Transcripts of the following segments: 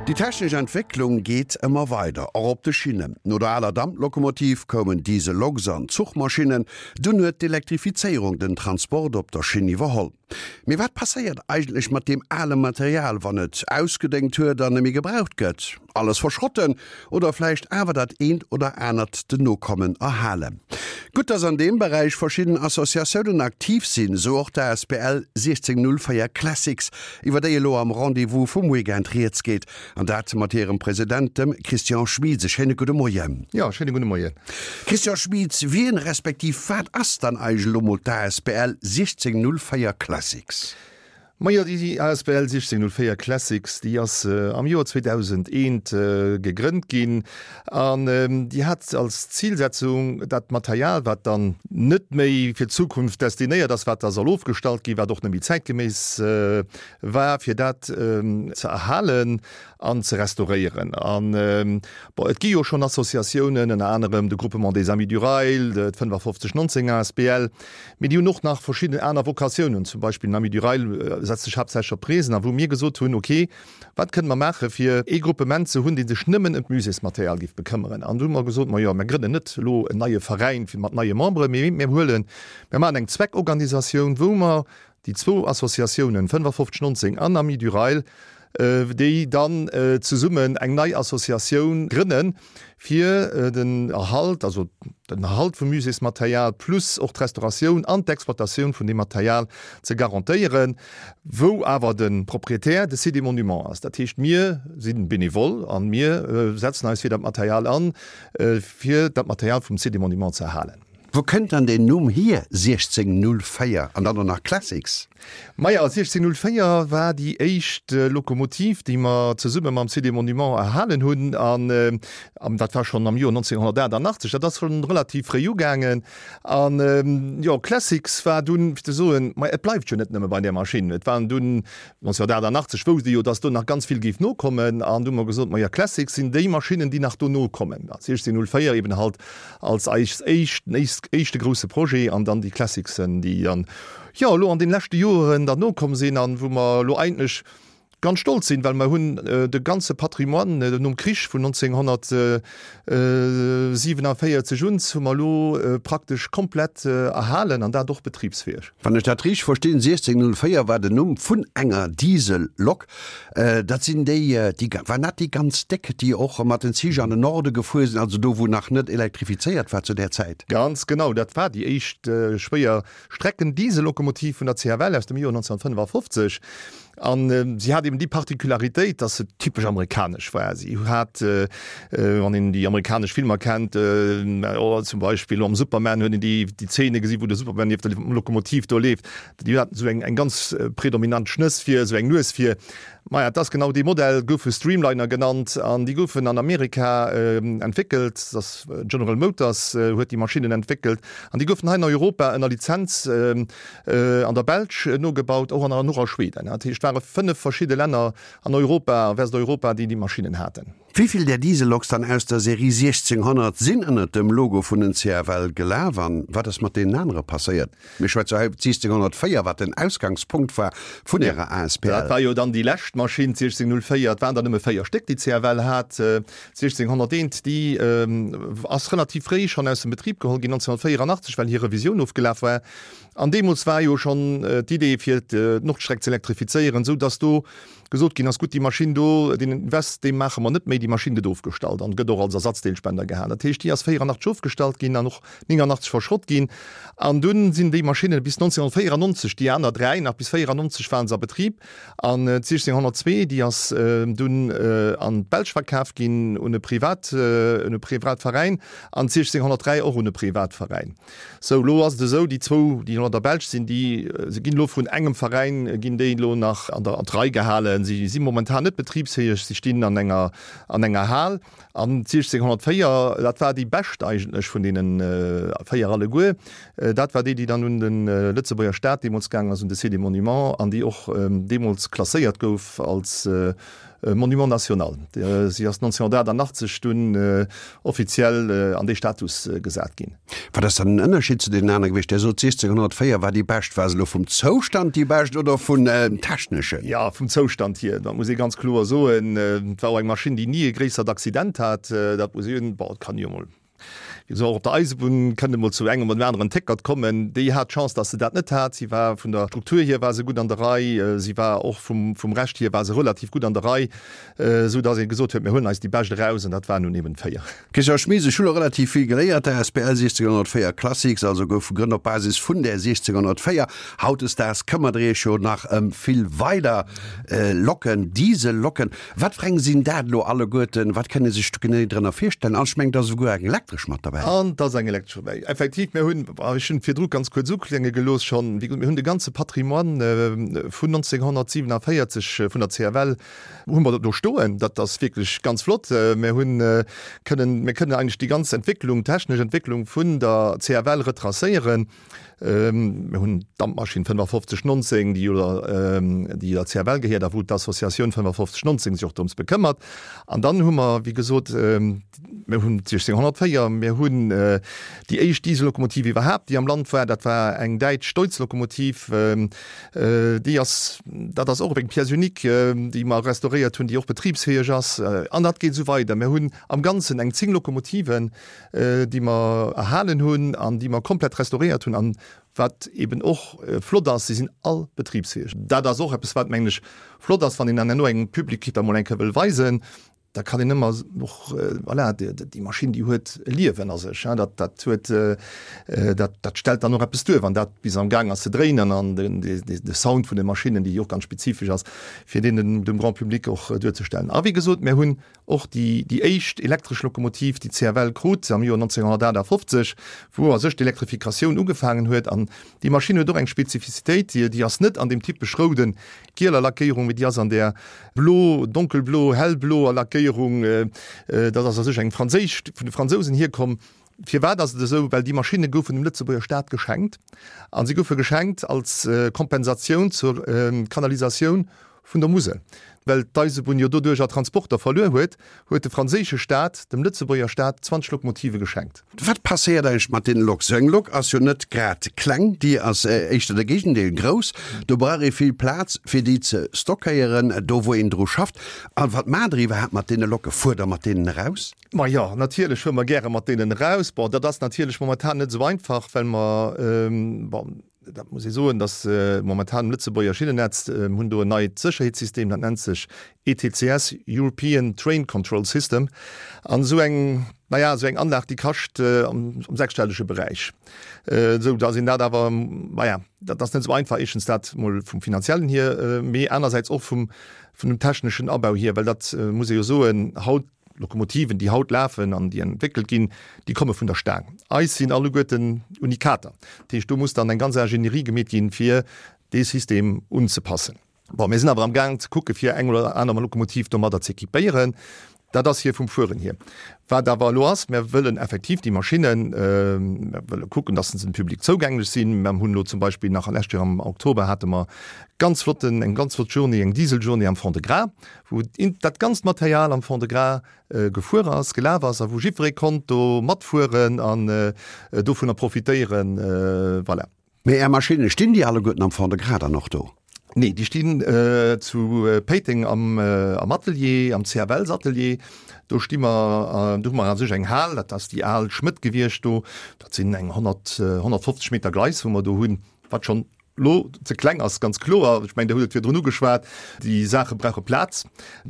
Déi technesch Entwécklung geet ëmmer weider, och op de Schinnen. No der aler Damplokomotiv koumen Dieselloks an Zuchmaschinnen, dunn huet d'Elektrifizéierung den Transport op der Schinn iwwerholl. Mee wat passéiert eigentlech mat deem ale Material, wann et ausgedéngt huet an neméi gebraucht gëtt? Alles verschrotten oder vläicht awer dat eent oder anert den Nokommen erhalen? Gutt, dass an deem Beräich verschidden Associatiounen aktiv sinn, esou och d'ASBL 1604 Classics, iwwer déi elo am Rendez-vous vum Weekend rieds geet, an dat mat hirem President, dem Christian Schmieds. E schéine gudde Moien. Jo, schéine gudde Moien. Christian Schmieds, wien respektiv wat ass dann eigentlech elo mol d'ASBL 1604 Classics? Majo, déi asbl 1604 Classics, déi ass am Joer 2001 gegrënnt ginn an déi hat als Zilsetzung, dat Material, wat dann net méi fir d'Zukunft destinéiert ass, wat da soll ofgestallt ginn, wat och net méi zäitgeméiss war, fir dat ze erhalen an ze restauréieren. An, bon, et gi jo schonn Associatiounen, ënner anerem de Groupement des Amis du Rail, d'5519 asbl, Mee déi hunn och nach verschidden aner Vokatiounen, zum Beispill den Amis du Rail setzt sech haaptsächlech op d'Reesen a wou mir gesot hunn, ok, wat kënne mer maache fir ee Gruppement ze hunn, dee sech nëmmen ëm d'Muséesmaterial géif bekëmmeren. An du hu mer gesot, majo, mer grënnen net elo en neie Veräin fir mat neie Memberen, mee mir huelen, mir maachen eng Zweckorganisatioun, wou mer Déi zwou Associatiounen 55 19 an Amis du Rail, déi dann zesummen eng nei Associatioun grënnen, fir den Erhalt, also den Erhalt vum Muséesmaterial plus och d'Restauratioun an d'Exploitatioun vun deem Material ze garantéieren, wou awer de Proprietär de Site des Monuments ass. Dat heescht, mir si benevol a mir setzen eis fir dat Material an, fir dat Material vum Site des Monuments ze erhalen. Wou kënnt dann deen Numm hier, 1604 an dann och nach Classics? Maja, 1604 war déi éischt Lokomotiv, déi mer zesumme mam Site des Monuments erhalen hunn an dat war schonn am Joer 1988. Dat ass schonn relativ fréi ugaangen an jo, Classics war dunn, fir ze soen, ma et bleift jo net nëmme bei där Maschinn. Et waren dunn 1988 wousst ee jo, datt do nach ganz vill géif nokommen an du hu mer gesot, maja, Classics sinn déi Maschinnen, déi nach dono kommen. 1604 eben halt als eis éischt, éischte grousse Projet an dann déi Classicsen, déi dann, jo, elo an den leschte Joeren dann nokomm sinn an wou mer elo eigentlech ganz stolz sinn, well mer hunn de ganze Patrimoine nom Krich vun 1947 un hu mer elo praktesch komplett erhalen an dat och betribsfäeg. Wann ech dat richteg verstinn, 1604 war den Numm vun enger Diesellok. Dat sinn déi, déi, waren dat déi ganz déck, déi och mat den Zich an den Norde gefuer sinn, also do wou nach net elektrifizéiert war zu där Zäit? Ganz genau, dat war déi éischt schwéier Strecken-Diesellokomotiv vun der CFL aus dem Joer 1955. An si hat eben déi Particularitéit, dass se typesch amerikanesch war. Si hat, wann een déi amerikanesch Filmer kennt, zum Beispill am Superman huet een déi déi Zeene gesi wou de Superman nieft der Lokomotiv do leeft. Déi haten esou eng eng ganz predominant Schnëss vir, esou eng Nues vir. Maja, et ass genau dee Modell, goufe Streamliner genannt an déi goufen an Amerika entwéckelt. Dat ass General Motors huet déi Maschinnen entwéckelt an déi goufen hei an Europa ënner Lizenz an der Belsch nogebaut, och an och a Schweden. Dat heescht, et ware 5 verschidde Länner an Europa, a Westeuropa, déi déi Maschinnen haten. Wéi vill där Dieselloks dann aus der Serie 1600 sinn ënnert dem Logo vun den CFL gelaf an wat ass mat deenen anere passéiert? Mir schwätze hei iwwer 1604, wat den Ausgangspunkt war vun Ärer asbl. Dat war jo dann déi lescht Maschinn, 1604. Et waren der nëmme 4 Stéck, déi d'CFL hat. 1601, déi ass relativ fréi schonn aus dem Betrib geholl ginn, 1984, well hir Revisioun ofgelaf war. An deemools war jo schonn d'Idee fir d'Nordstreck ze elektrifizéieren, esou datt do gesot ginn ass, gutt, déi Maschinn do, deen Invest, dee maache mer net méi, déi Maschinn gëtt ofgestallt an gëtt och als Ersatzdeelspender gehalen. Dat heescht, déi ass 84 ofgestallt ginn an och 89 verschrott ginn. An dunn sinn déi Maschinne bis 1994, déi aner dräi nach bis 94 waren se a Betrib. An d'1602, déi ass dunn an d'Belsch verkaf ginn un e Privat, un e Privatveräin an d'1603 och un e Privatveräin. Sou, elo ass et esou, déi zwou, déi elo an der Belsch sinn, déi se ginn elo vun engem Veräin, ginn déi elo nach an der an d'Rei gehalen. Si si momentan net betribsfäeg, si stinn an enger an enger Hal. An d'1604, dat war déi bescht eigentlech vun deene véier alleguer, dat war déi, déi dann un de Lëtzebuerger Staat deemools gaangen ass, un de Site des Monuments, an déi och deemools klasséiert gouf als. Monument national. Si ass 1988 dunn offiziell an dee Status gesat ginn. Wat ass dann den Ënnerscheed zu deenen anere gewiescht? Dir sot 1604 war déi bescht. War se elo vum Zoustand déi bescht oder vun techneschen? Jo, vum Zoustand hier, dat muss ee ganz kloer soen. Et war och eng Maschinn, déi ni e gréissert Accident hat. Dat muss een, bon, et kann jo emol, wéi gesot, och op der Eisebunn kënnt emol zu engem oder dem aneren Téckert kommen. Déi hat d'Chance, datt se dat net hat. Si war vun der Struktur hier war se gutt an der Rei. Si war och vum, vum Rescht hier war se relativ gutt an der Rei, esou datt ee gesot huet, mir huelen eis déi bescht eraus, an dat waren nun eben 4. Christian Schmit, Ech hu lo relativ vill geléiert. D'asbl 1604 Classics also gouf gegrënnt op Basis vun där 1604. Hautdesdaags këmmert der iech jo nach ëm vill weider Locken, Diesellocken. Wat fir eng sinn dat elo alleguerten? Wat kënn ee sech do genee drënner virstellen? An ech mengen, et ass esouguer eng elektresch mat derbäi. An et ass eng elektresch dobäi. Effektiv, mir hunn, ech hunn et virdru ganz kuerz uklénge gelooss schonn, wéi gesot, mir hunn de ganze Patrimoine vun 1947 vun der CFL, Hu mer do stoen. Dat ass wierklech ganz flott. Mir hunn kënnen, mir kënnen eigentlech déi ganz Entwécklung, technesch Entwécklung vun der CFL retracéieren. Mir hunn d'Dampmaschinn 5519, déi jo der, déi der CFL gehéiert a wou d'Associatioun 5519 sech och drëms bekëmmert. An dann hu mer, wéi gesot, mir hunn d'1604, mir hunn déi éischt Diesellokomotiv iwwerhaapt, déi am Land war, dat war eng däitsch Deutz-Lokomotiv, Déi ass, dat ass och eng Pièce unique, déi mer restauréiert hunn, déi och betribsfäeg ass. An dat geet esou weider. Mir hunn am Ganzen eng 10 Lokomotiven, déi mer erhalen hunn an déi mer komplett restauréiert hunn. An wat eben och flott ass, si sinn all betribsfäeg. Dat ass och eppes, wat, mengen ech, flott ass, wann een dann herno engem Public dat emol eng Kéier wëll weisen. Da kann een ëmmer och, voilà, déi Maschinn, déi huet e Liewen a sech, dat, dat huet, dat, dat stellt dann och eppes duer, wann dat bis am Gaang ass ze dréinen an den, de Sound vun de Maschinnen, déi och ganz spezifesch ass, fir deen dem, dem Grand public och duerzestellen. A wéi gesot, mir hunn och déi, déi éischt elektresch Lokomotiv, déi d'CFL krut am Joer 1958, wou a sech d'Elektrifikatioun ugefaangen huet. An déi Maschinn huet och eng Spezifizitéit, déi, déi ass net an deem typesch rouden, gieler Lackéierung, mee déi ass an där blo, donkelblo, hellbloer Lackéierung. Dat ass a sech eng franséisch, vun de Fransousen hierkomm. Firwat ass et esou? Well déi Maschinne goufen dem Lëtzebuerger Staat geschenkt a si goufe geschenkt als Kompensatioun zur Kanalisatioun vun der Musel. Well d'Eisebunn jo doduercher Transporter verluer huet, huet de franséische Staat dem Lëtzebuerger Staat 20 Lokomotive geschenkt. Wat passéiert eigentlech mat deene Loks? Sou eng Lok ass jo net grad kleng, déi ass éischter de Géigendeel, grouss. Do brauch ee vill Plaz fir déi ze stockéieren, do wou een dru schafft. A wat maacht der iwwerhaapt mat deene Lokke? Fuert der mat deenen eraus? Ma jo, natierlech fuere mer gäre mat deenen eraus. Bon, dat ass natierlech momentan net esou einfach, well mer, bon, Dat muss ee soen, datt momentan um Lëtzebuerger Schinnennetz, mir hunn do en neit Sécherheetssystem, dat nennt sech ETCS, European Train Control System. An esou eng, na ja, esou eng Anlag, déi kascht am sechsstellege Beräich. Esou datt een dat awer, na ja, dat ass net esou einfach, éischtens dat mol vum Finanziellen hier, mee anersäits och vum, vun dem techneschen Abau hier, well dat muss ee jo soen, haut, Lokomotiven, déi haut lafen an déi entwéckelt ginn, déi komme vun der Staang. Eis sinn alleguerten Unikater. Dat heescht, do muss dann eng ganz Ingénierie gemeet ginn, fir dee System unzepassen. Bon, mir sinn awer am Gaang ze kucke fir eng oder aner Lokomotiv domadder ze équipéieren. Dat ass hir vum Fueren hier. Wat awer elo ass, mir wëllen effektiv déi Maschinnen, mir wëlle kucken, dass se dem Public zougänglech sinn. Mir hunn elo zum Beispill nach lescht Joer am Oktober hate mer ganz flotten, eng ganz flott Journée, eng Dieseljournée am Fond-de-Gras, wou dat ganzt Material am Fond-de-Gras gefuer ass, gelaf ass a wou jiddweree konnt do matfueren an dovunner profitéieren. Voilà. Mee Är Maschinne, stinn déi alleguerten am Fond-de-Gras dann och do? Nee, déi stinn zu Péiteng am Atelier, am CFLs-Atelier. Do sti mer, do hu mer a sech eng Hal, dat ass déi al Schmëdd gewiescht do. Dat sinn eng 100, 150 Meter Gleis, wou mer do hunn, wat schonn Lo ze kleng ass ganz kloer. Ech mengen, Dir hutt et virdrun ugeschwat, déi Saache brauche Plaz.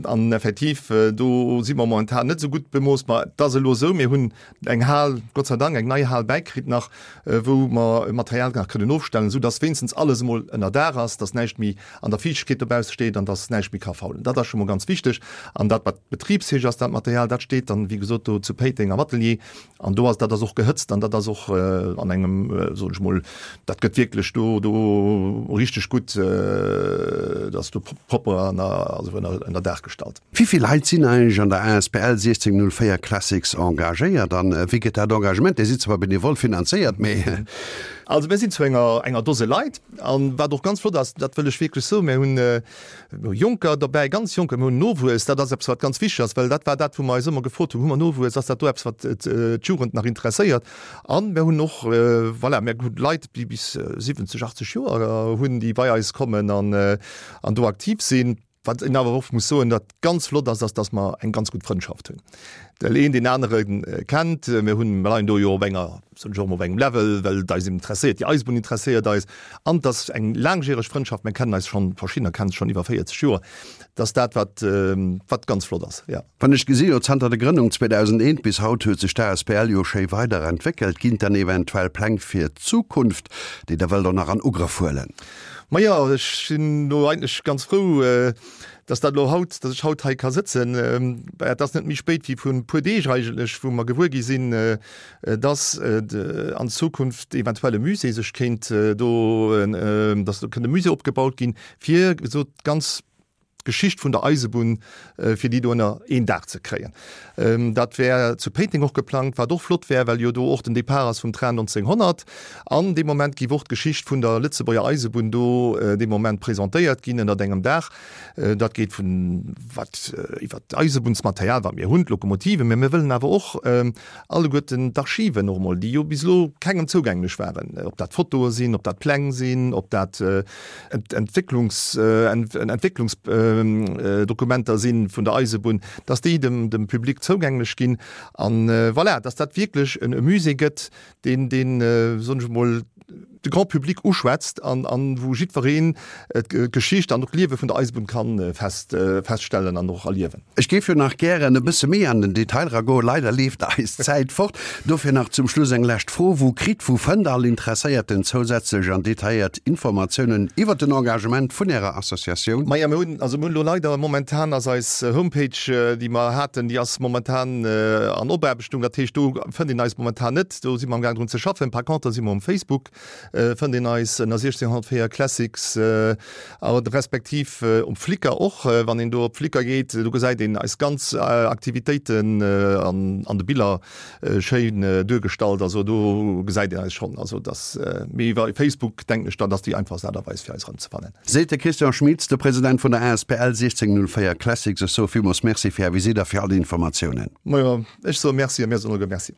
An effektiv, do si mer momentan net esou gutt bemooss. Ma et ass elo esou, mir hunn eng Hal, Gott sei Dank, eng nei Hal bäikritt nach, wou mer Material nach kënnen ofstellen, esou dass wéinstens alles emol ënner Daach ass, dass näischt méi an der Fiichtegkeet dobausse steet an dass näischt méi ka faulen. Dat ass scho mol ganz wichteg. An dat, wat betribsfäeg ass, dat Material, dat steet dann, wéi gesot, do zu Péiteng am Atelier. An do ass, dat ass och gehëtzt an dat ass och an engem, soen ech mol, dat gëtt wierklech do, do richteg gutt, dat ass do propper an also ënner, ënner Daach gestallt. Wéi vill Leit sinn eigentlech an der asbl 1604 Classics engagéiert an wéi gëtt dat Engagement, Dir sidd zwar benevol finanzéiert, mee. Also mir sinn zu enger enger Dose Leit an wat och ganz flott ass, dat wëll ech wierklech soen, mir hunn Jonker dobäi, ganz Jonker, mir hunn Nowuess, dat ass eppes wat ganz wichteg ass, well dat war dat wou mer eis ëmmer gefrot hunn, hu mer Nowuess, ass dat do eppes wat d'Jugend nach interesséiert? An mir hunn och, voilà, mir hunn Leit déi bis 70, 80 Joer hunn, déi bei eis kommen an an do aktiv sinn. Wat een awer och muss soen, wat ganz flott ass, ass, dass mer eng ganz gutt Frëndschaft hunn. Well een deen anere kennt. Mir hunn, mir leien do jo op enger, soen ech och emol, op engem Level, well et eis interesséiert, déi Eisebunn interesséiert eis. An et ass eng laangjäreg Frëndschaft, mir kennen eis schonn, verschiddener kennen sech schonn iwwer 40 Joer. Dat ass dat, wat, wat ganz flott ass, jo. Wann ech gesi jo, zanter der Grënnung 2001 bis haut huet sech d'ASBL jo schéi weider entwéckelt. Ginn et dann eventuell Pläng fir d'Zukunft, déi Der wëllt och nach an Ugrëff huelen? Majo, ech sinn elo eigentlech ganz frou, dass dat elo haut, dass ech haut hei ka sëtzen. Et ass net méi spéit wéi vrun e puer Deeg eigentlech, wou mer gewuer gi sinn, dass an Zukunft eventuell e Musée sech kéint do, dass do kënnt e Musée opgebaut ginn, fir esou d'ganz d'Geschicht vun der Eisebunn, fir déi do ënner een Daach ze kréien. Dat wär zu Péiteng och geplangt, wat och flott wär, well jo do och den Depart ass vum Train 1900. An dee Moment géif och d'Geschicht vun der Lëtzebuerger Eisebunn do dee Moment presentéiert ginn ënnert engem Daach. Dat geet vun wat iwwer d'Eisebunnsmaterial, wat mir hunn, d'Lokomotiven, mä mir wëllen awer och alleguerten d'Archiven och emol, déi jo bis elo kengem zougänglech waren, ob dat Fotoe sinn, ob dat Pläng sinn, ob dat Entwécklungs, Entwécklungsdokumenter sinn vun der Eisebunn, dass déi dem, dem Public zougänglech ginn. An voilà, dass dat wierklech e Musée gëtt, deen, deen, soen ech emol, de Grand public uschwätzt an, an wou jiddwereen d'Geschicht an och d'Liewe vun der Eisebunn kann fest, feststellen an och erliewen. Ech géif jo nach gären e bësse méi an den Detail eragoen, leider leeft eis d'Zäit fort. Dofir nach zum Schluss eng lescht Fro, Wou kritt, wou fënnt all Interesséierten zousätzlech an detailléiert Informatiounen iwwert den Engagement vun Ärer Associatioun? Maja, mir hunn, also mir hunn elo leider momentan ass eis Homepage, déi mer haten, déi ass momentan an Opaarbechtung. Dat heescht, do fënnt een eis momentan net. Do si mer amgaang drun ze schaffen. Par contre si mer um Facebook, fënnt een eis ënner 1604 Classics a respektiv um Flickr och. Wann een do op Flickr geet, do gesäit een eis ganz Aktivitéiten an de Biller schéin duergestallt. Also do gesäit een eis schonn. Also dass, mee iwwer Facebook denken ech dann, ass déi einfachst Aart a Weis fir eis erëmzefannen. Seet de Christian Schmitz, de President vun der asbl 1604 Classics. Ech soe villmools Merci fir Är Visitt a fir all déi Informatiounen. Majo, ech soe Merci a mir soen alleguer Merci.